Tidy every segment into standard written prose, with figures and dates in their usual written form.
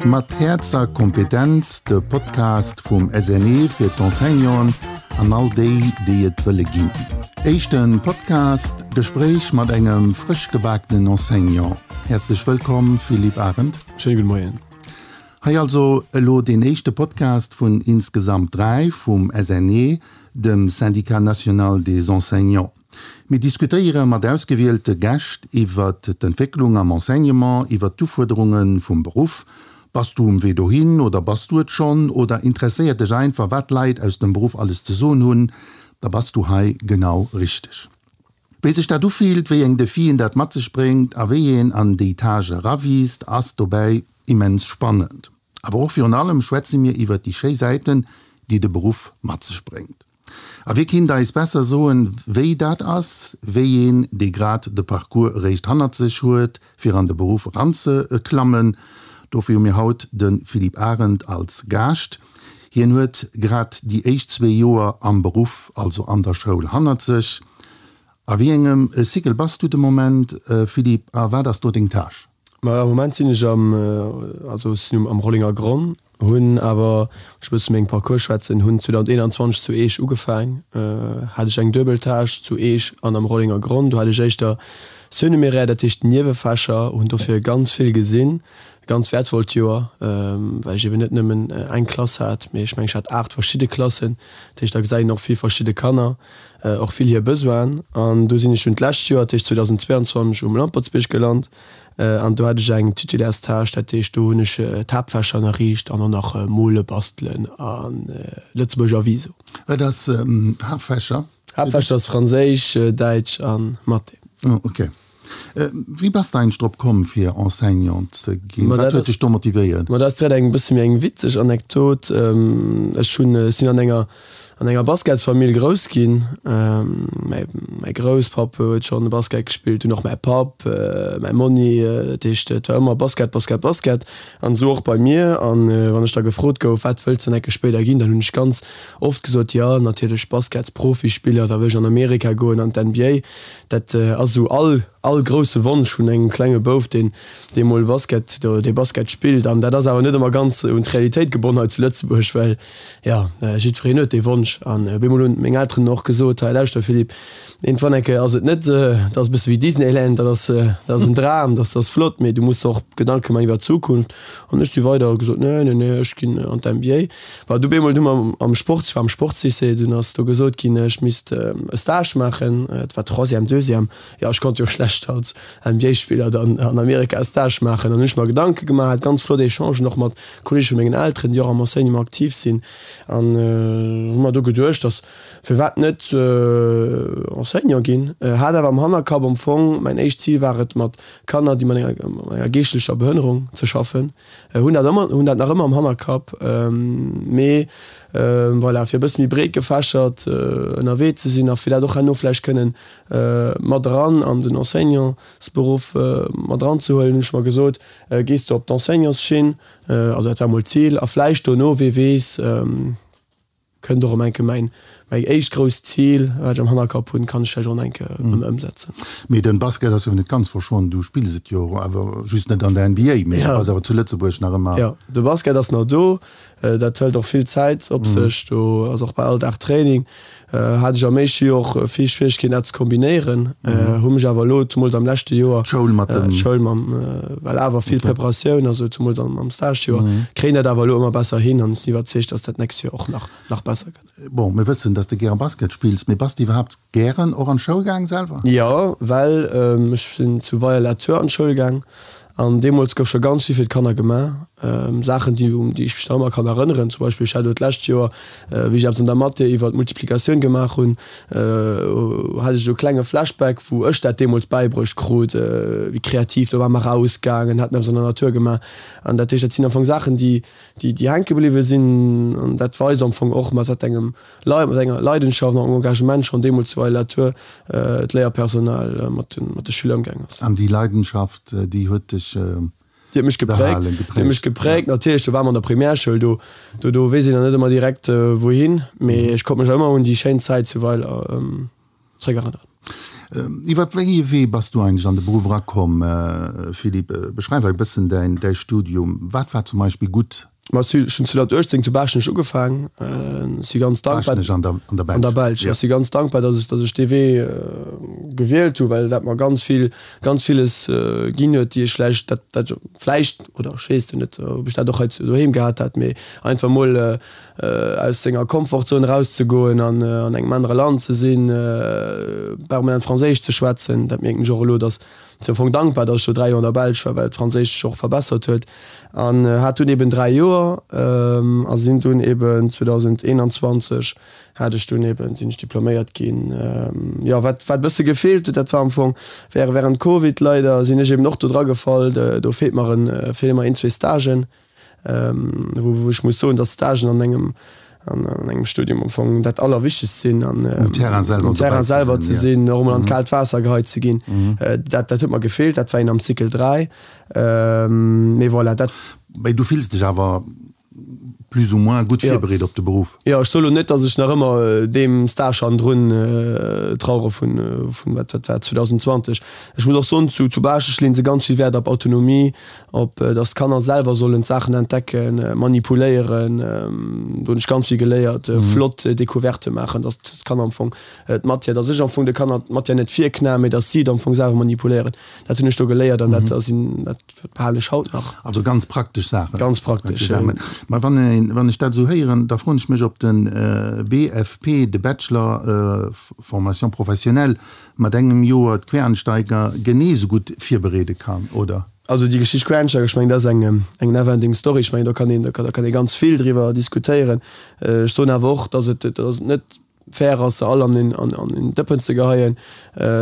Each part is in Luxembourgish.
Mat Häerz a Kompetenz, de Podcast vum SNE fir d'Enseignanten an all déi, déi et wëlle ginn. Éischte Podcast, Gespréich mat engem frësch gebakenen Enseignant. Häerzlech wëllkomm, Philippe Arendt. Schéine gudde Moien. Hei also elo deen éischte Podcast vun insgesamt 3 vum SNE, dem Syndicat National des Enseignants. Mir diskutéiere mat ausgewielte Gäscht iwwert d'Entwécklung am Enseignement, iwwert d'Ufuerderunge vum Beruff. Bass du um Wee dohin oder bass du et schonn oder interesséiert dech einfach, wat d'Leit aus dem Beruff alles ze soen hunn, da bass du hei genau richteg. Wéi sech dat ufillt, wéi eng Defien dat mat sech bréngt a wéi een an déi Tâche erawiisst, ass dobäi immens spannend. Awer och virun allem schwätze mir iwwert déi schéi Säiten, déi de Beruff mat sech bréngt. A wie kinnt eis besser soen, wéi dat ass, wéi een, dee grad de Parcours eréischt hannert sech huet, fir an de Beruff eranzeklammen? Dofir hu mir haut de Philippe Arendt als Gaascht. Hien huet grad déi éischt zwee Joer am Beruff, also an der Schoul, hannert sech. A wéi engem Cycle bass du de Moment, Philippe, a wat ass do deng Tâche? Ma am Moment sinn ech am, also ech sinn am Rollinger Gronn, hunn awer, ech wëll zu mengem Parcours schwätzen, hunn 2021 zu Eech ugefaang, hat ech eng duebel Tâche zu Eech an am Rollinger Gronn. Do hat ech éischter Surnuméraire, dat heescht Niewefächer, hunn dofir ganz vill gesinn, e ganz wäertvollt Joer, well ech eben net nëmmen eng Klass hat, mee ech mengen ech hat 8 verschidde Klassen, dat heescht da gesäit een och vill verschidde Kanner. och vill hir Besoinen. An do sinn ech dunn d'lescht Joer, dat heescht 2022, um Lampertsbierg gelant an do hat ech eng Titulaires-Tâche, dat heescht do hunn ech d'Haaptfächer ënnerriicht an och nach Mole, Bastelen a Lëtzebuerger Viso. Wat ass Haaptfächer? Haaptfächer ass Franséisch, Däitsch a Mathé. Oh, okay. Wéi bass de eigentlech drop komm fir Enseignant ze ginn? Wat huet dech do motivéiert? Ma dat ass direkt eng bësse méi eng witzeg Anekdot. Ech hunn, ech sinn an enger an enger Basketsfamill grouss ginn. Mäi mäi Grousspapp huet schonn Basket gespillt, dunn och mäi Papp, mäi Monni. Dat heescht et war ëmmer Basket, Basket, Basket an esou och bei mir. An wann ech da gefrot gouf, wat wëlls de dann enke spéider ginn, dann hunn ech ganz oft gesot, jo natierlech Basketsprofispiller, da wëll ech an Amerika goen an d'NBA. Dat ass esou all, all grousse Wonsch vun engem klenge Bouf, deen, dee mol Basket, dee Basket spillt. An dat ass awer net ëmmer ganz un d'Realitéit gebonn hei zu Lëtzebuerg, well, jo, jiddwereen huet dee Wonsch. An op eemol hunn meng Elteren och gesot, Hei, lauschter Philippe, iergendwann eng Kéier ass et net, dat ass e bësse wéi Disneyland, dat ass, dat ass en Dram, dat ass flott, mee du muss der och Gedanke maachen iwwer d'Zukunft. An ech si weider a gesot, Nee, nee, nee, ech ginn an d'MBA. Well du bemol du mer am Sport, ech war am Sportslycée, dunn ass do gesot ginn, ech misst e Stage maachen. Et war Troisième, Deuxième. Jo, ech konnt jo schlecht als NBA-Spiller dann an Amerika e Stage maachen. An hunn ech mer Gedanke gemaach, hat ganz flott Echangen och mat Kolleege vu mengen Elteren, déi och am Enseignement aktiv sinn. An hu mer do geduecht, dass firwat net Enseignant ginn. Hat awer am Hannerkapp am Fong, mäin éischt Zil war et, mat Kanner, déi mat enger geeschtlecher Behënnerung ze schaffen, hunn dat ëmmer, hunn dat nach ëmmer am Hannerkapp, mee voilà, fir e bësse méi breet gefächert ënnerwee ze sinn a fir dat och herno vläicht kënnen mat eran an den Enseignantsberuff mat eranzehuelen, hunn ech mer gesot, gees de op d'Enseignantsschinn, also dat war mol d'Zil, a vläicht dono, wee weess, Kënnt och erëm enke mäin mäi éischt grousst Zil, wat ech am Hannerkapp hunn, kann ech vläicht och enke erëm ëmsetzen. Mee den Basket ass jo net ganz verschwonn, du spills et jo awer just net an der NBA, mee du bass awer zu Lëtzebuerg nach ëmmer. Jo, de Basket ass nach do, dat hëlt och vill Zäit op sech, do ass och bal all Dag Training. Hat ech am éischte Joer och vill Schwieregkeeten dat ze kombinéieren, hu mech awer elo, zumools am leschte Joer, D'Schoul mat dem. D'Schoul mam, well awer vill Preparatioun, also zumools am am Stagejoer, kréien dat awer elo ëmmer besser hin an ech sinn iwwerzeegt, dass dat d'nächst Joer och nach nach besser gëtt. Bon, mir wëssen, dass de gäre Basket spills, mee bass de iwwerhaapt gären och an d'Schoul gaang selwer? Jo, well ech sinn zu Weier-la-Tour an d'Schoul gaang An deemools gouf scho ganz vill fir d'Kanner gemaach, Saachen, déi, un déi ech mech nach ëmmer kann erënneren. Zum Beispill, ech hat elo d'lescht Joer, wéi ech eppes an der Mathé iwwer d'Multiplikatioun gemaach hunn, hat ech esou e klenge Flashback, wou ech dat deemools bäibruecht krut, wéi kreativ, do ware mer erausgaangen, haten eppes an der Natur gemaach. An dat heescht, dat sinn am Fong Saachen, déi, déi, déi hänke bliwwe sinn. An dat weist am Fong och, mat wat engem Leit mat enger Leidenschaft an engem Engagement schonn deemools zu Weiler-la-Tour d'Léierpersonal mat de Schüler ëmgaangen ass. An déi Leidenschaft, déi huet dech Déi huet mech gepräägt. Déi huet mech gepräägt. Natierlech, do ware mer an der Primärschoul, do, do, do weess een nach net ëmmer direkt wouhin, mee ech konnt mech ëmmer un déi schéin Zäit zu Weiler zréckerënneren. Iwwer wéi ee Wee bass du eigentlech an de Beruff erakomm, Philippe? Beschreif eis e bëssen däin däi Studium. Wat war zum Beispill gutt? Ma ech hunn 2018 zu Baaschtnech ugefaang. Ech si ganz dankbar. Baaschtnech an der an der Belsch. An der Belsch. Ech si ganz dankbar, datt ech datt ech dee Wee gewielt hu, well dat mer ganz vill ganz villes ginn huet, déi ech vläicht dat dat vläicht oder ech weess et net, ob ech dat och hei zu doheem gehat hätt, mee einfach mol aus senger Komfortzon erauszegoen an an engem anere Land ze sinn, permanent Franséisch ze schwätzen, dat mierken ech och elo, datt sinn am Fong dankbar, datt ech do 3 Joer an der Belsch war, well d'Franséisch sech och verbessert huet an hat dunn eben 3 Joer a sinn dunn eben 2021 hat ech dunn eben, sinn ech diploméiert ginn. Jo, wat wat e bësse gefeelt huet, dat war am Fong wäre während Covid leider sinn ech eben och do dragefall, do feelt mer en, feele mer een, zwee Stagen. wou ech muss soen, dass Stagen an engem an engem Studium am Fong dat Allerwichtegst sinn an um Terrain selwer, um Terrain selwer ze sinn, och emol an d'kaalt Waasser geheit ze ginn. Dat dat huet mer gefeelt, dat war een am Cycle 3. Mee voilà, dat. Mee du fills dech awer plus ou moins gutt virbereet op de Beruff? Jo, ech soe lo net, dass ech nach ëmmer deem Stage hannendrun trauere vun vun wat dat war 2020. Ech muss och soen, zu zu Baaschtnech leeën se ganz vill Wäert op Autonomie, op dass d'Kanner selwer sollen d'Saachen entdecken, manipuléieren, do hunn ech ganz vill geléiert, flott Découverte maachen, dass d'Kanner am Fong d'Matière, dass ech am Fong de Kanner d'Matière net virknaen, mee dass si et am Fong selwer manipuléieren. Dat hunn ech do geléiert an dat ass een, dat behalen ech haut nach. Also ganz praktesch Saachen. Ganz praktesch, jo. Mä wann een, wann ech dat esou héieren, da froen ech mech, ob de BFP, de Bachelor Formation professionnelle, mat engem Joer d'Quereinsteiger genee esou gutt virbereede kann, oder? Also déi Geschicht Quereinsteiger, ech mengen dat ass eng eng never ending story. Ech mengen do kann een do kann ee ganz vill driwwer diskutéieren. Ech soen awer och, datt et datt et net fair ass se all an een an een Dëppen ze geheien.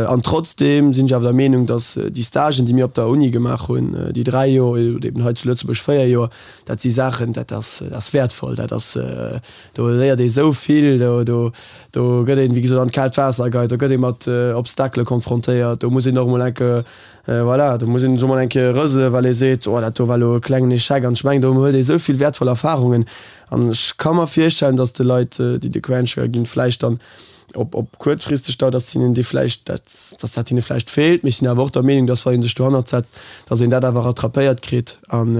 An trotzdeem sinn ech awer der Meenung, datt déi Stagen déi mir op der Uni gemaach hunn, déi 3 Joer oder eben hei zu Lëtzebuerg 4 Joer, dat si Saachen, dat ass dat ass wäertvoll, dat ass do léiert ee sou vill, do do do gëtt een wéi gesot an d'kaalt Waasser geheit, do gëtt ee mat Obstakele konfrontéiert, do muss een och emol enke Voilà, do muss een sech mol eng Kéier rëselen, well ee seet, oh dat do war elo e klengen Echec. An ech mengen, do huet ee sou vill wäertvoll Erfarungen. An ech ka mer virstellen, datt de Leit, déi de Quereinsteiger ginn, vläicht dann op, op kuerzfristeg Dauer, datt hinnen déi vläicht, dat, datt dat hinne vläicht feelt. Mee ech sinn awer och der Meenung, datt wa ee sech dohannert setzt, datt een dat awer rattrapéiert kritt. An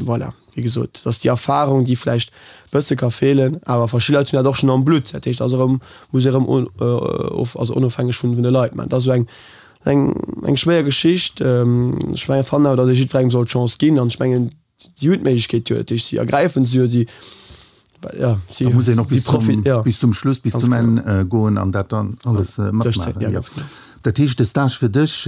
voilà, wéi gesot, datt déi Erfarung, déi vläicht e bësse ka feelen, awer verschidde Leit hunn dat och schonn am Blutt. Dat heescht, ass erëm, muss ee erëm of, also onofhängeg vun de Leit maachen. Dat ass esou eng Eng eng schwéier Geschicht. Ech mengen, fannen awer, datt ee jiddwerengem soll d'Chance ginn. An ech mengen, si hunn d'Méiglechkeet jo, dat heescht, si ergräifen se jo, si, ja, si, Da muss een och bis zum, ja. bis zum Schluss, bis zum Enn goen an dat dann alles matmaachen. Ja, ganz genau. Dat heescht, de Stage fir dech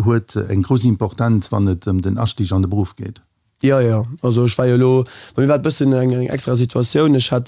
huet eng grouss Importenz, wann et ëm den Astig an de Beruff geet? Jo, jo. Also ech war jo elo, bei mir war et bëssen eng eng extra Situatioun. Ech hat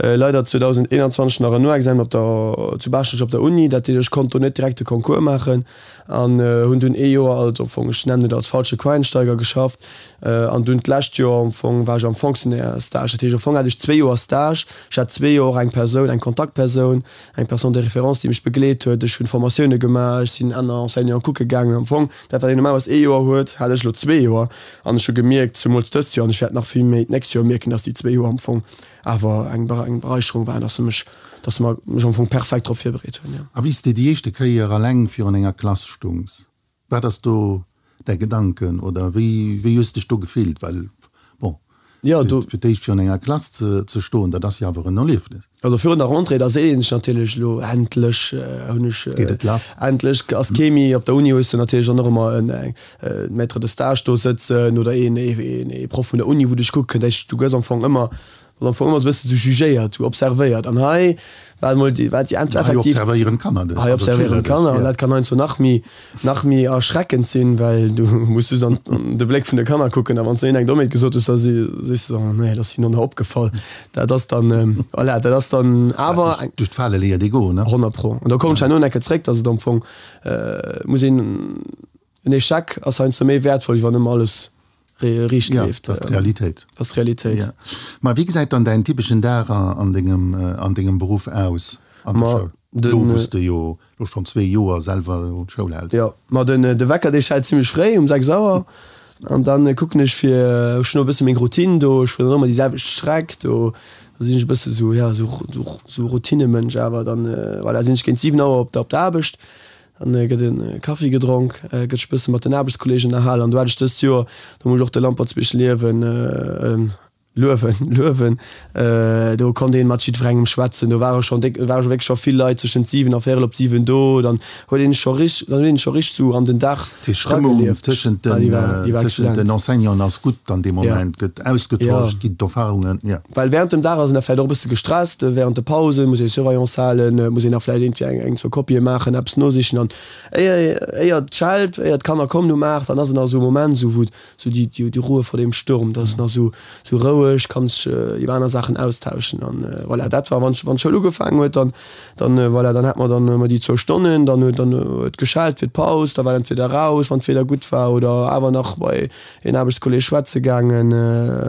leider 2021 nach en Noexamen op der, zu Baaschtnech op der Uni. Dat heescht, ech konnt do net direkt de Concours maachen an hunn dunn ee Joer als, am Fong, ech nennen et als falsche Quereinsteiger geschafft. An dunn d'lescht Joer am Fong war ech am Fonctionnaire-Stage. Dat heescht, am Fong hat ech zwee Joer Stage. Ech hat zwee Joer och eng Persoun, eng Kontaktpersoun, eng Personne de référence, déi mech begleet huet. Ech hunn Formatioune gemaach, ech sinn aner Enseignanten kucke gaangen. Am Fong Dat wat een normalerweis ee Joer huet, hat ech elo zwee Joer. An ech hu gemierkt, zumools dëst Joer, an ech wäert nach vill méi d'nächst Joer mierken, dass déi zwee Joer am Fong awer eng eng Bereicherung waren, dass se mech, dass se mer mech am Fong perfekt drop virbereet hunn, jo. A wéi s de déi éischte Kéier alleng virun enger Klass stungs, wat ass do däi Gedanken oder wéi wéi hues dech do gefillt? Well bon, Jo, do. Fir d'éischt virun enger Klass ze stoen, dat ass jo awer en Erliefnis. Also virun der Rentrée, da seet een sech natierlech, elo endlech hunn ech. Geet et lass. Endlech ass kee méi. Op der Uni hues de natierlech dann och ëmmer en Maître de stage do sëtzen oder een ee Proff vun der Uni, wou dech kucke kënnt. Du gëss am Fong ëmmer, bass am Fong ëmmer esou e bësse sou jugéiert, sou observéiert. An hei war emol déi, war déi effektiv. Hei observéieren d'Kanner dech. Hei observéieren d'Kanner an dat kann heiansdo nach méi, nach méi erschreckend sinn, well du muss just an de Bléck vun de Kanner kucken a wann s de hinnen eng Dommheet gesot hues, da si sees de, oh nee, dat ass hinnen och nach opgefall. Dat ass dann, voilà, dat ass dann awer eng. Duerch d'Fale léiert ee goen, ne? 100 pro. An do kommen ech herno nach eng Kéier zréck, dass et am Fong muss een, en Echec ass heiansdo méi wäertvoll, wéi wann ëmmer alles riicht leeft. Ja, dat ass d'Realitéit. Dat ass d'Realitéit. Ja. Ma wéi gesäit dann däin typeschen Dag an dengem, an dengem Beruff aus an der Schoul? Do wou s de jo lo schonn zwee Joer selwer d'Schoul häls. Jo, ma den, de Wecker dee schellt zimmlech fréi, um 6 Auer. An dann kucken ech fir, ech hunn och e bësse meng Routine do, ech fueren dann ëmmer déi selwecht Streck do, do sinn ech e bësse sou, ja, sou, sou, sou Routinemënsch awer. Dann, voilà, sinn ech géint 7 Auer op der, op der Aarbecht. Dann gëtt e Kaffi gedronk, gëtt sech bësse mat den Aarbechtskolleegen ënnerhalen. An do hat ech dëst Joer, do muss ech och de Lampertsbierg liewen, luewen, luewen, do konnt een mat jiddwerengem schwätzen. Do ware schonn déck, ware wierklech scho vill Leit zwëschent 7 a véierel op 7 do. Dann huet een scho rich, dann huet een scho richteg sou an den Dag Déi Stëmmung eragelieft. tëschent den, déi war tëschent den Enseignanten ass gutt an deem Moment, gëtt ausgetosch, ginn d'Erfarungen, jo. Well während dem Dag ass een da vläicht och e bësse gestresst, während de Pausen muss ee Surveillance halen, muss een nach vläicht iergendwéi eng, eng, zwou Kopië maachen, eppes nosichen an éier, éier et schellt, éier d'Kanner kommen um 8, dann ass et nach esou e Moment esou wou esou déi, déi, déi Ruhe vor dem Sturm, dat ass nach esou, esou roueg, kann sech iwwer aner Saachen austauschen an voilà, dat war wann, wann d'Schoul ugefaangen huet, dann, dann voilà, dann hat mer dann ëmmer déi zwou Stonnen, dann huet, dann huet geschellt fir d'Paus, da war entweder raus, wann d'Wieder gutt war oder awer nach bei een Aarbechtskolleg schwätze gaangen,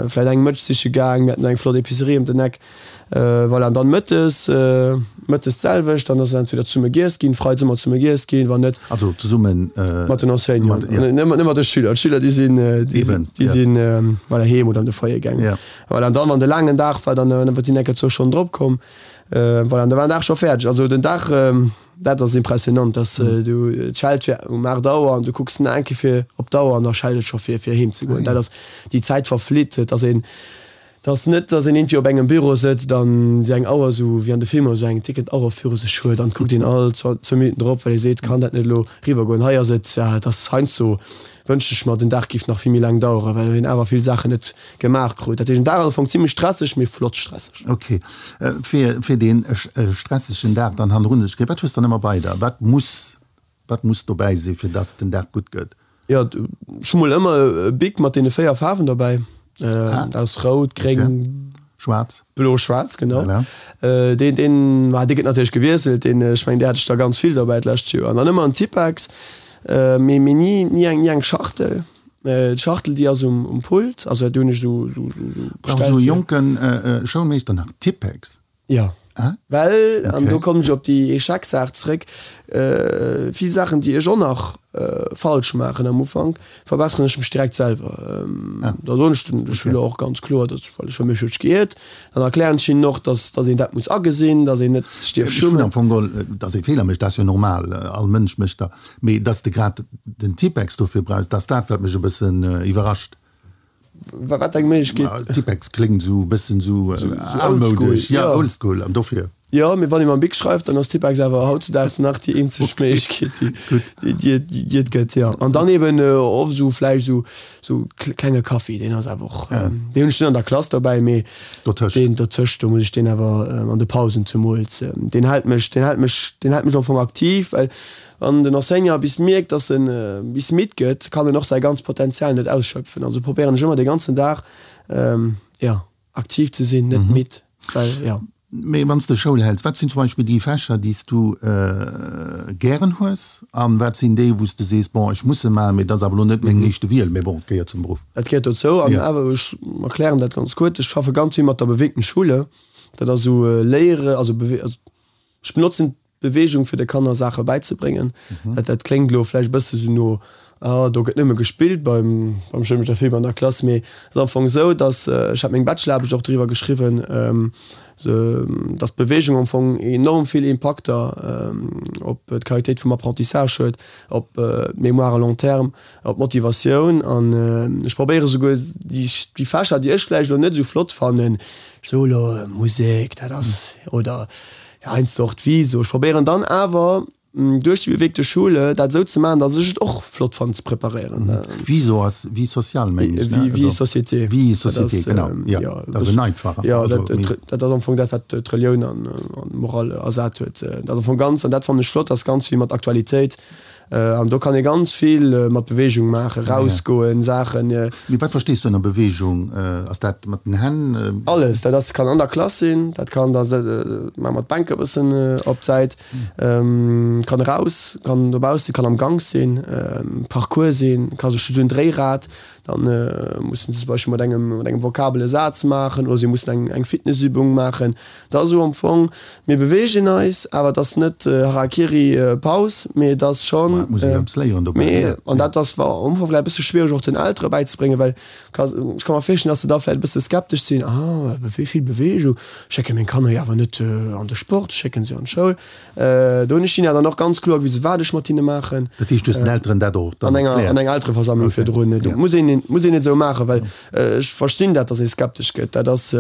vläit eng Mëtsch siche gaang, mir haten eng flott Epicerie ëm den Eck, voilà. An dann mëttes, mëttes d'selwecht, dann ass entweder zesumme giess ginn, freides ëmmer zesumme giess ginn, wann net. Also zesummen. Mat den Enseignanten, net mat de Schüler, d'Schüler déi sinn, déi sinn, voilà, heem oder an de Foyer gaangen. Voilà, an dann, wann de laangen Dag war, dann sinn enker zwou Stonnen drop komm, voilà, an da war den Dag scho fäerdeg. Also den Dag. Dat ass impressionant, dass du, et schellt fir um 8 Auer an du kucks nach eng Kéier fir op d'Auer an da schellt et scho fir fir heem ze goen. Dat ass, déi Zäit verflitt. Et ass een, et ass net, dass een iergendwéi op engem Büro sëtzt an esou eng Auer, esou wéi an de Filmer, esou eng tickend Auer viru sech huet an et kuckt een all zwou Minutten drop, well ee seet, kann dat net elo riwwer goen. Hei ass et, et ass heiansdo wënscht ech mer, den Dag géif nach vill méi laang daueren, well een awer vill Saachen net gemaach krut. Dat heescht, den Dag ass am Fong zimlech stresseg, mee flott stresseg. Ok. Fir, fir dee stressegen Dag dann hannerun sech kréien, wat hues dann ëmmer bei der? Wat muss, wat muss dobäi sinn, fir dass den Dag gutt gëtt? Jo, ech hu mol ëmmer e Bic mat deene 4 Faarwen dobäi. Dat ass rout, gréng, Schwaarz. Blo, schwaarz, genau. Voilà. Deen, deen, ma dee gëtt natierlech gewiesselt, deen, ech mengen, dee hat ech der ganz vill dobäi d'lescht Joer. An dann ëmmer en Tippex, mee, mee ni, ni eng, ni eng Schachtel. D'Schachtel, déi ass um, um Pult, also do hunn ech esou, esou, esou Brauch esou e jonke Schoulmeeschter nach Tippex? Jo. Ah? Well, an do kommen ech op déi Échec-Saach zréck, vill Saachen, déi ech och nach falsch maachen am Ufank, verbesseren ech mech direkt selwer. Da soen ech den Schüler och ganz kloer, dass, well ech hu mech huet geiert, dann erklären ech hinnen och, dass, dass een dat muss agesinn, dass een net sech dierf schummen. Ech hunn am Fong geholl, dass ee Feeler mécht, dat ass jo normal, all Mënsch mécht der, mee dass de grad den Tippex dofir brauchs, dat ass dat, wat mech e bëssen iwwerrascht. Wat eng Méiglechkeet? Tippex kléngt esou e bëssen esou almoudesch, jo, oldschool, an dofir. Jo, mee wann ee mam Bic schreift, dann ass Tippex awer hautzudaags nach déi eenzeg Méiglechkeet, déi déi et gëtt, jo. An dann eben oft esou vläicht esou esou klenge Kaffi, deen ass awer och, deen hunn ech net an der Klass dobäi, mee deen dotëscht, do muss ech deen awer an de Pausen zemools, deen hält mech, deen hält mech, deen hält mech am Fong aktiv, well Wann den Enseignant bis mierkt, dass en bis midd gëtt, kann en och säi ganzt Potenzial net ausschöpfen. Also probéieren ech ëmmer de ganzen Dag, jo, aktiv ze sinn, net midd, well, jo. Mee wann s de Schoul häls, wat sinn zum Beispill déi Fächer, déi s du gären hues an wat sinn déi, wou s de sees, bon, ech muss se maachen, mee dat ass awer elo net meng éischte Wiel, mee bon, et gehéiert zum Beruff? Dat gehéiert dozou an awer, ech erklären dat ganz kuerz, ech schaffe ganz vill mat der bewegten Schule, dat ass esou Léiere, also ech benotzen Beweegung fir de Kanner Saache bäizebréngen. Dat dat kléngt elo vläicht e bësse sou no, ah do gëtt nëmme gespillt beim beim Schoulmeeschter Philippe an der Klass, mee et ass am Fong esou, datt, ech hat meng Bachelor-Aarbecht och driwwer geschriwwen, datt d'Beweegung am Fong enorm vill Impakter op d'Qualitéit vum Apprentissage huet, op d'Mémoire à long terme, op d'Motivatioun an ech probéiere souguer déi déi Fächer, déi ech vläicht elo net esou flott fannen, ech soe elo Musek, dat ass, oder Heiansdo och d'Viso. Ech probéieren dann awer duerch déi bewegte Schule dat esou ze maachen, datt ech et och flott fannen ze preparéieren. Viso ass Vie sociale, mengen ech, ne? Vie et société. Vie et société, genau, jo. Dat ass en einfacher. Jo, dat ass am Fong dat, wat d'Relioun an d'Moral ersat huet. Dat ass am Fong ganz, an dat fannen ech flott, ass ganz vill mat Aktualitéit. An do kann ee ganz vill mat Beweegung maachen, rausgoen, Saachen. Mee wat verstees du ënner Beweegung? Ass dat mat den Hänn? Alles, dat ass, kann an der Klass sinn, dat kann da maache mer d'Bänke e bëssen op d'Säit, kann eraus, kann dobaussen, kann am Gank sinn, Parcours sinn, ka sech esou en Dréirad. Dann mussen se zum Beispill mat engem, mat engem Vokabel e Saz maachen oder si mussen eng, eng Fitnessübung maachen. Dat ass esou am Fong, mir beweegen eis, awer et ass net Harakiri, Paus, mee et ass schonn. Ma et muss ee jo eppes léieren dobäi, Mee, an dat ass am Ufank vläicht e bësse schwiereg och den Eltere bäizebréngen, well ka, ech ka mer virstellen, datt se da vläicht e bësse skeptesch sinn, Ah, wéi vill Beweegung, ech schécke meng Kanner jo awer net an de Sport, ech schécke se an d'Schoul. Do hunn ech hinne dann och ganz kloer gewisen, wat ech mat hinne maachen. Dat heescht, du hues den Elteren dat och dann erkläert? An enger Eltereversammlung virdrun. Dat muss een, muss een net esou maachen, well ech verstinn dat, datt ee skeptesch gëtt. Dat ass,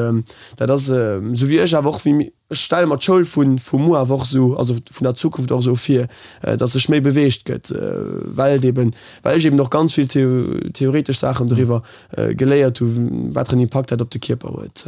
dat ass esou wéi ech awer och, wéi ech stelle mer d'Schoul vu vu muer awer och esou, also vun der Zukunft och esou vir, datt sech méi beweegt gëtt, well et eben, well ech eben och ganz vill theoretesch Saachen doriwwer geléiert hu wat fir en Impakt dat op de Kierper huet.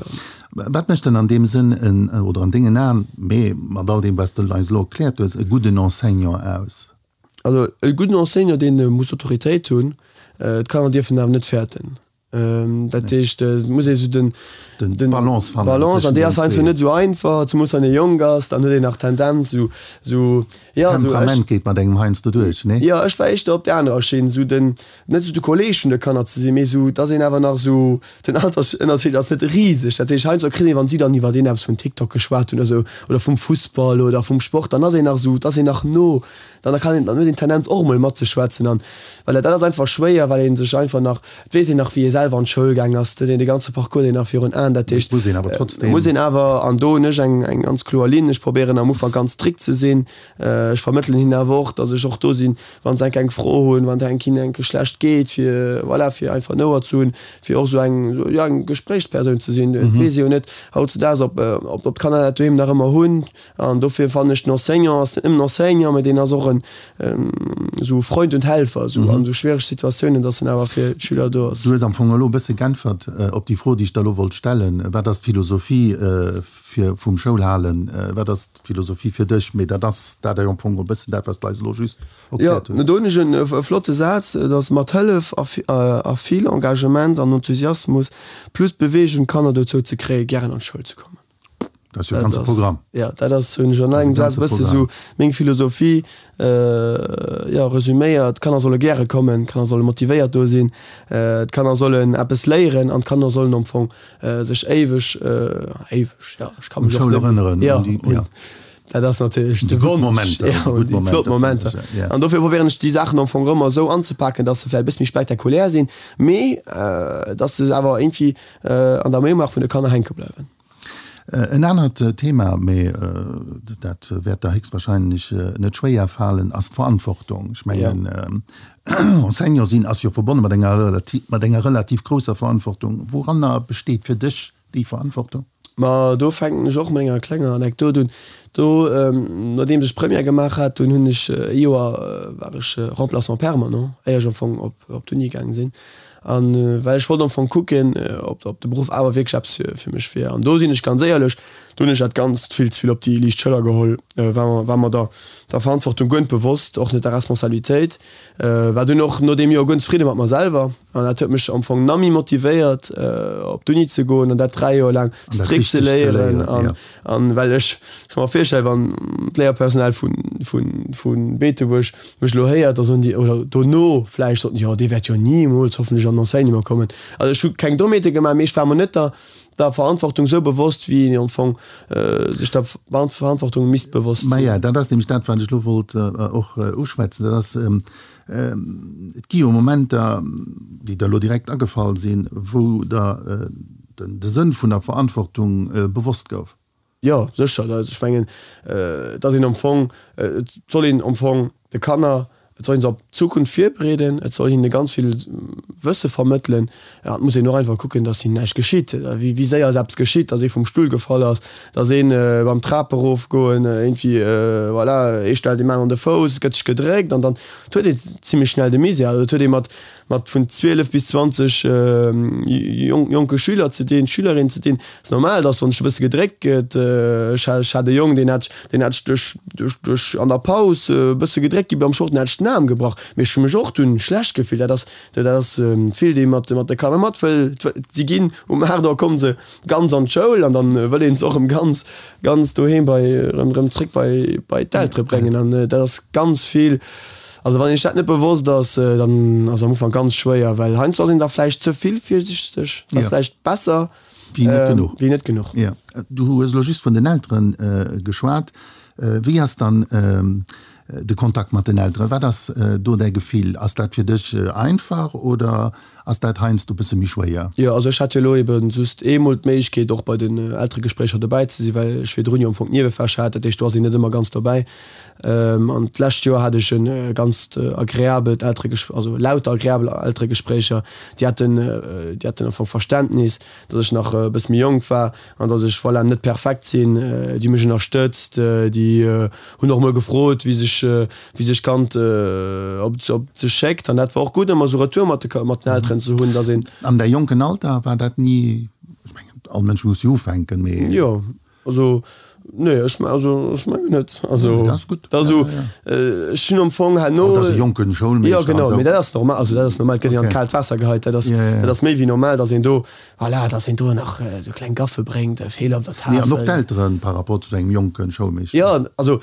Wat mécht dann an deem Sënn en, oder an dengen Aen, mee mat all deem wat s de eis elo erkläert hues, e gudden Enseignant aus? Also e gudden Enseignant, dee muss Autoritéit hunn, d'Kanner dierfen en awer net fäerten. Dat heescht, et muss ee sou den, Den Balance fannen Balance, an déi ass heiansdo net esou einfach, zemools wann ee jonk ass, dann huet een nach d'Tendenz esou, esou, jo, esou ech. Temperament geet mat engem heiansdo duerch, nee? Jo, ech war éischter op där anerer Schinn, esou den, net esou de Kolleeg vun de Kanner ze sinn, mee esou, dass een awer nach esou, den Altersënnerscheed ass net riseg, dat heescht heiansdo kritt een, wann si dann iwwer een eppes vun TikTok geschwat hunn oder esou, oder vum Fussball oder vum Sport, dann ass een nach esou, dass een nach no, dann kann een, dann huet een d'Tendenz och emol matzeschwätzen an voilà, dat ass einfach schwéier, well ee sech einfach nach, et weess een nach wéi ee selwer an d'Schoul gaang ass, et huet een de ganze Parcours deen nach virun Aen, dat heescht, Muss een awer trotzdem. muss een awer, an do hunn ech eng, eng ganz kloer Linn, ech probéieren am Ufank ganz strikt ze sinn, ech vermëttelen hinnen awer och, datt ech och do sinn, wa se enk eng Fro hunn, wann et enk hinnen enke schlecht geet, fir voilà, fir einfach en Ouer ze hunn, fir och esou eng, jo eng Gespréichspersoun ze sinn. Et weess ee jo net hautzedaags, ob, ob d'Kanner dat doheem nach ëmmer hunn. An dofir fannen ech, den Enseignant ass net nëmmen Enseignant, mä deen ass och en esou Freund und Helfer esou an esou schwiereg Situatiounen, dass en awer fir d'Schüler do ass. Du hues am Fong elo e bësse g'äntwert op déi Fro, déi ech der elo wollt stellen, Wat ass d'Philosophie fir vum Schoulhalen? Wat ass d'Philosophie fir dech? Mee dat ass dat am Fong e bëssen dat, wat s de eis elo just erkläert hues. Jo, do hunn ech e flotte Saz, et ass mat Hëllef a vill Engagement an Enthusiasmus plus Beweegung d'Kanner dozou ze kréien, gären an d'Schoul ze kommen. Dat ass jo e ganze Programm. Jo, dat ass, hunn ech an engem Saz e bësse sou meng Philosophie, jo, resüméiert. D'Kanner solle gäre kommen, d'Kanner solle motivéiert do sinn, d'Kanner sollen eppes léieren an d'Kanner sollen am Fong sech éiweg, éiweg, jo, ech ka mech och net erënneren, jo, un, dat ass natierlech de Wonsch, jo, un déi flott Momenter. An dofir probéieren ech déi Saachen am Fong ëmmer esou anzepaken, dass se vläicht e bësse méi spektakulär sinn, mee dass se awer iergendwéi an der Mémoire vun de Kanner hänke bleiwen. En anert Thema, mee dat wäert der héchstwahrscheinlech net schwéier falen, ass d'Verantwortung. Ech mengen, Enseignant sinn ass jo verbonne mat enger relativ, mat enger relativ grousser Verantwortung. Wouranner besteet fir dech déi Verantwortung? Ma do fänken ech och mat enger klenger Anekdot un. Do, nodeems ech Première gemaach hat, dunn hunn ech e Joer war ech Remplaçant permanent, éier ech am Fong op d'Uni gaange sinn. An well ech wollt am Fong kucken, ob ob de Beruff awer wierklech eppes fir fir mech wier. An do sinn ech ganz éierlech, do hunn ech dat Ganzt vill ze vill op déi liicht Schëller geholl, war mer war mer der der Verantwortung guer net bewosst, och net der Responsabilitéit. War dunn och no deem Joer guer net zefridde mat mer selwer an dat huet mech am Fong nach méi motivéiert, op d'Uni ze goen an dat 3 Joer laang strikt ze léieren. An An well ech ka mer virstellen, wann d'Léierpersonal vu, vu, vu Beetebuerg mech elo héiert, da soen déi, oder dono vläicht soten déi, jo dee wäert jo nimools hoffentlech an den Enseignement kommen. Also ech hu keng Dommheete gemaach, mee ech war mer net der, der Verantwortung esou bewosst, wéi een am Fong sech der Verantwortung misst bewosst sinn. Maja, dat ass nämlech dat, wat ech elo wollt och uschwätzen. Dat ass, et gi jo Momenter, déi der elo direkt agefall sinn, wou der de Sënn vun der Verantwortung bewosst gouf. Jo, sécher. Ech mengen, et ass een am Fong, et soll een am Fong de Kanner, et soll een se op d'Zukunft virbereeden, et soll hinne ganz vill Wësse vermëttelen. An et muss een och einfach kucken, datt hinnen näischt geschitt. Wéi séier ass eppes geschitt, datt ee vum Stull gefall ass, datt een beim Trape erofgoen iergendwéi, voilà, ee stellt deem aneren de Fouss, et gëtt sech gedréckt an dann huet ee zimlech schnell de Misär. Also et huet ee mat mat vun 12 bis 20 jonke Schüler ze dinn, Schülerinnen ze dinn. Et ass normal, dass wann sech e bësse gedréckt gëtt, ech hat e Jong, deen hat deen hat sech duerch duerch duerch an der Paus e bësse gedréckt gi beim Sport, deen hat sech den Aarm gebrach. Mee ech hu mech och dunn schlecht gefillt. Dat ass dat ass vill, dee mat mat de Kanner mat wëll. Si ginn um 8 Auer komme se ganz an d'Schoul an dann wëll een se och erëm ganz ganz doheem bei erëm erëm zréck bei bei d'Eltere bréngen an dat ass ganz vill. Also wann een sech dat net bewosst ass, dann ass am Ufank ganz schwéier, well heiansdo ass een da vläicht ze vill virsichteg, ass vläicht besser wéi net genuch. Wéi net genuch. Jo. Du hues elo just vun den Eltere geschwat. Wéi ass dann de Kontakt mat den Elteren? Wat ass do däi Gefill? Ass dat fir dech einfach oder ass dat heiansdo e bësse méi schwéier? Jo, also ech hat jo elo ebe just eemol d'Méiglechkeet och bei den Elteregespréicher dobäi ze sinn, well ech virdrun jo am Fong d'Niewefächer hat. Dat heescht, do ass een net ëmmer ganz dobäi. An d'lescht Joer hat ech e ganzt agreabelt Eltereges-, also lauter agreabel Elteregespréicher. Déi haten, déi haten am Fong Verständnis, datt ech nach e bësse méi jonk war an datt ech, voilà, net perfekt sinn. Déi hu mech ënnerstëtzt, déi hunn och mol gefrot, wéi sech, wéi sech d'Kand, ob et, ob et sech schéckt. An dat war och gutt, ëmmer esou Retour mat de, mat den Elteren ze hunn, datt een. An däi jonken Alter war dat ni, ech mengen, all Mënsch muss jo ufänken, mee. Jo, also, nee, ech, also ech mengen net. Also, dat ass gutt. Dat ass esou, ech hunn am Fong herno. Dat ass e jonken Schoulmeeschter. Jo, genau, mee dat ass normal, also dat ass normal, et gëtt een an d'kaalt Waasser geheit, dat ass, dat ass méi wéi normal, datt een do, Voilà, dass een do nach esou kleng Gaffe bréngt, Feeler op der Tafel. Nee, an och d'Elteren par rapport zu engem jonke Schoulmeeschter. Jo, also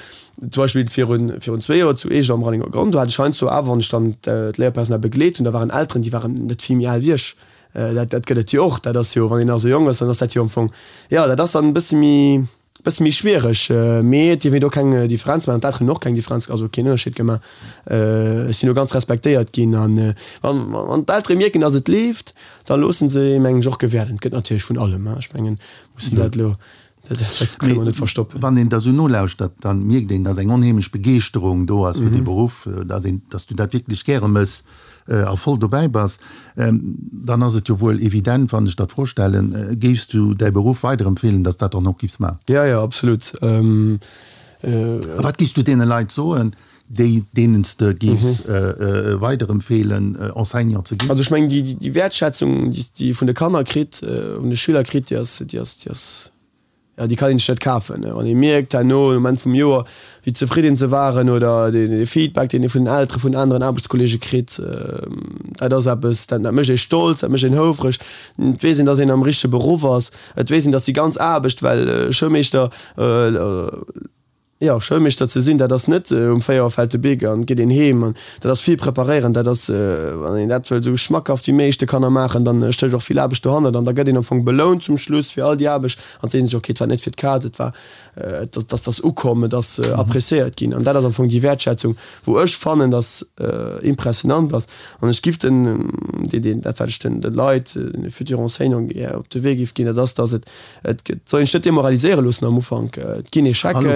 zum Beispill virun, virun zwee Joer zu Eech am Rallinger Gronn, do hat ech heiansdo awer, wann ech dann d'Léierpersonal begleet hunn, da waren Elteren, déi waren net vill méi al wéi ech. Dat, dat gëtt et jo och. Dat ass jo, wann een nach esou jonk ass, dann ass dat jo am Fong, jo, dat ass dann e bësse méi, Bësse méi schwiereg, mee et dierf een do keng Differenz maachen. D'Elteren hunn och keng Differenz, also keen Ënnerscheed gemaach. Ech sinn do ganz respektéiert ginn an wann d'Eltere mierken, datt et leeft, da loosse se ee mengen ech och gewäerden. Et gëtt natierlech vun allem, ech mengen, mussen dat elo, dat kënne mer net verstoppen. Wann een der esou nolauschtert, da mierkt een, datt eng onheemlech Begeeschterung do ass fir dee Beruff, datt een, datt s du dat wierklech gäre mëss. a voll dobäi bass, dann ass et jo wuel evident, wann ech der d'Fro stellen, Géifs du däi Beruff weiderempfeelen, dass dat dann och giffs maachen? Jo, jo, absolut. A wat giffs du deene Leit soen, déi, deenen s de giffs weiderempfeelen, Enseignant ze ginn? Also ech mengen, déi Wäertschätzung, déi s de vun de Kanner kritt, vun de Schüler kritt, déi ass, déi ass, déi ass, Jo, déi kann een sech net kafen. Wann ee mierkt herno um Enn vum Joer, wéi zefridden se waren oder de Feedback, deen ee vun den Eltere, vun aneren Aarbechtskolleege kritt, dat ass eppes, dat mécht ee stolz, dat mécht een houfreg. Et weess een, datt een am richtege Beruff ass. Et weess een, datt déi ganz Aarbecht, well Schoulmeeschter, Jo, Schoulmeeschter ze sinn, dat ass net um 4 Auer fält de Bic an et geet een heem. An dat ass vill preparéieren, dat ass, wann een dat wëll esou schmackhaft wéi méiglech de Kanner maachen, dann stécht och vill Aarbecht dohannert an da gëtt een am Fong belount zum Schluss fir all déi Aarbecht an seet sech, ok, et war net fir d'Kaz, et war, et ass, ass ukomm, et ass appréciéiert ginn. An dat ass am Fong déi Wäertschätzung, wou ech fannen, dass impressionant ass. An ech giff den, déi, déi, dat wat ech den, de Leit, den futurs enseignants gär op de Wee giff ginn, dat ass, dass et, Et soll een sech net demoraliséiere loossen am Ufank. Et ginn Echecken,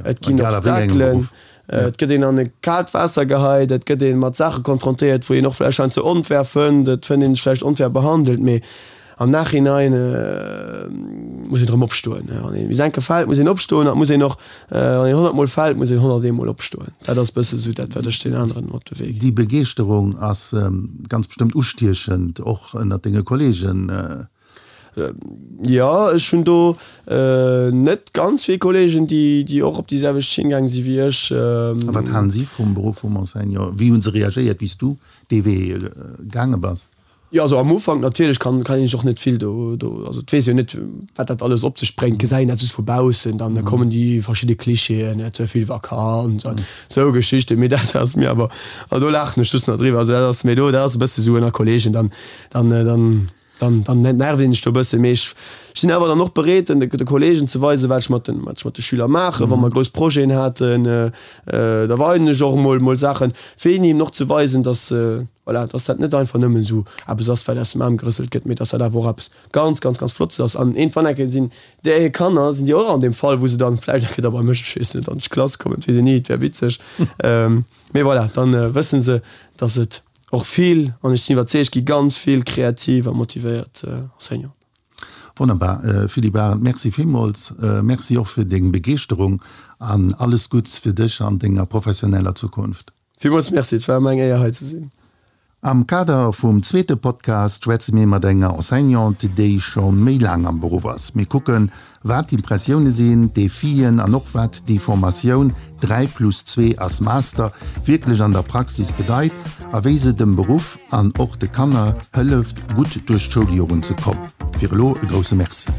et ginn Obstakelen, et gëtt een an e kaalt Waasser geheit, et gëtt ee mat Saache konfrontéiert, wou een och vläicht heiansdo onfair fënnt, et fënnt een sech vläicht onfair behandelt, mee am Nachhinein muss een erëm opstoen. Wann een bis eng Kéier fält, muss een opstoen an et muss een och, wann een 100 Mol fält, muss een 101 Mol opstoen. Dat ass e bësse sou dat, wat ech den aneren op de Wee ginn. Déi Begeeschterung ass ganz bestëmmt ustiechend, och ënnert denge Kollegen. Jo, ech hunn do net ganz vill Kollegen, déi och op déi selwecht Schinn gaang si wéi ech. A wat halen si vum Beruff vum Enseignant? Wéi hu se reagéiert, wéi s du dee Wee gaange bass? Jo, also am Ufank natierlech kann kann een sech och net vill do do, also et weess een jo net, wat dat alles op sech bréngt, gesäit een dat just vu baussen, dann kommen déi verschidde Klischeeën, ze vill Vakanz an esou Geschichten, mee dat ass mir awer, also do laachen ech just nach driwwer, also dat ass mir do, dat ass e bësse sou ënner Kollegen, dann dann dann. Dann, dann nervt een sech do e bëssen. Mee ech sinn awer dann och bereet, den, de Kollegen ze weisen, wat ech mat den, wat ech mat de Schüler maachen. Wa mer grouss Projeten haten, da weisen ech och emol, mol Saachen, fir hinnen eben och ze weisen, dass, voilà, dass dat net einfach nëmmen esou eppes ass, wat aus dem Aarm gerësselt gëtt, mee dass dat awer och eppes ganz, ganz, ganz Flottes ass. An iergendwann eng Kéier sinn där hir Kanner, sinn déi och an deem Fall, wou se dann vläicht eng Kéier da bei mech, ech weess net, an d'Klass kommen, et weess een ni, et wär witzeg. Mee voilà, dann wëssen se, dass et och vill, an ech sinn iwwerzeegt, gi ganz vill kreativ a motivéiert Enseignanten. Wonnerbar, Philippe Arendt, Merci villmools. Merci och fir deng Begeeschterung an alles Gutts fir dech an denger professioneller Zukunft. Villmools Merci, et war mer eng Éier hei ze sinn. Am Kader vum zweete Podcast schwätze mir mat enger Enseignante, déi scho méi laang am Beruff ass. Mir kucken, wat d'Impressioune sinn, d'Defien an och wat déi Formatioun 3 plus 2 ass Master wierklech an der Praxis bedeit a wéi se dem Beruff an och de Kanner hëlleft, gutt duerch d'Schouljoren ze kommen. Fir elo e grousse Merci.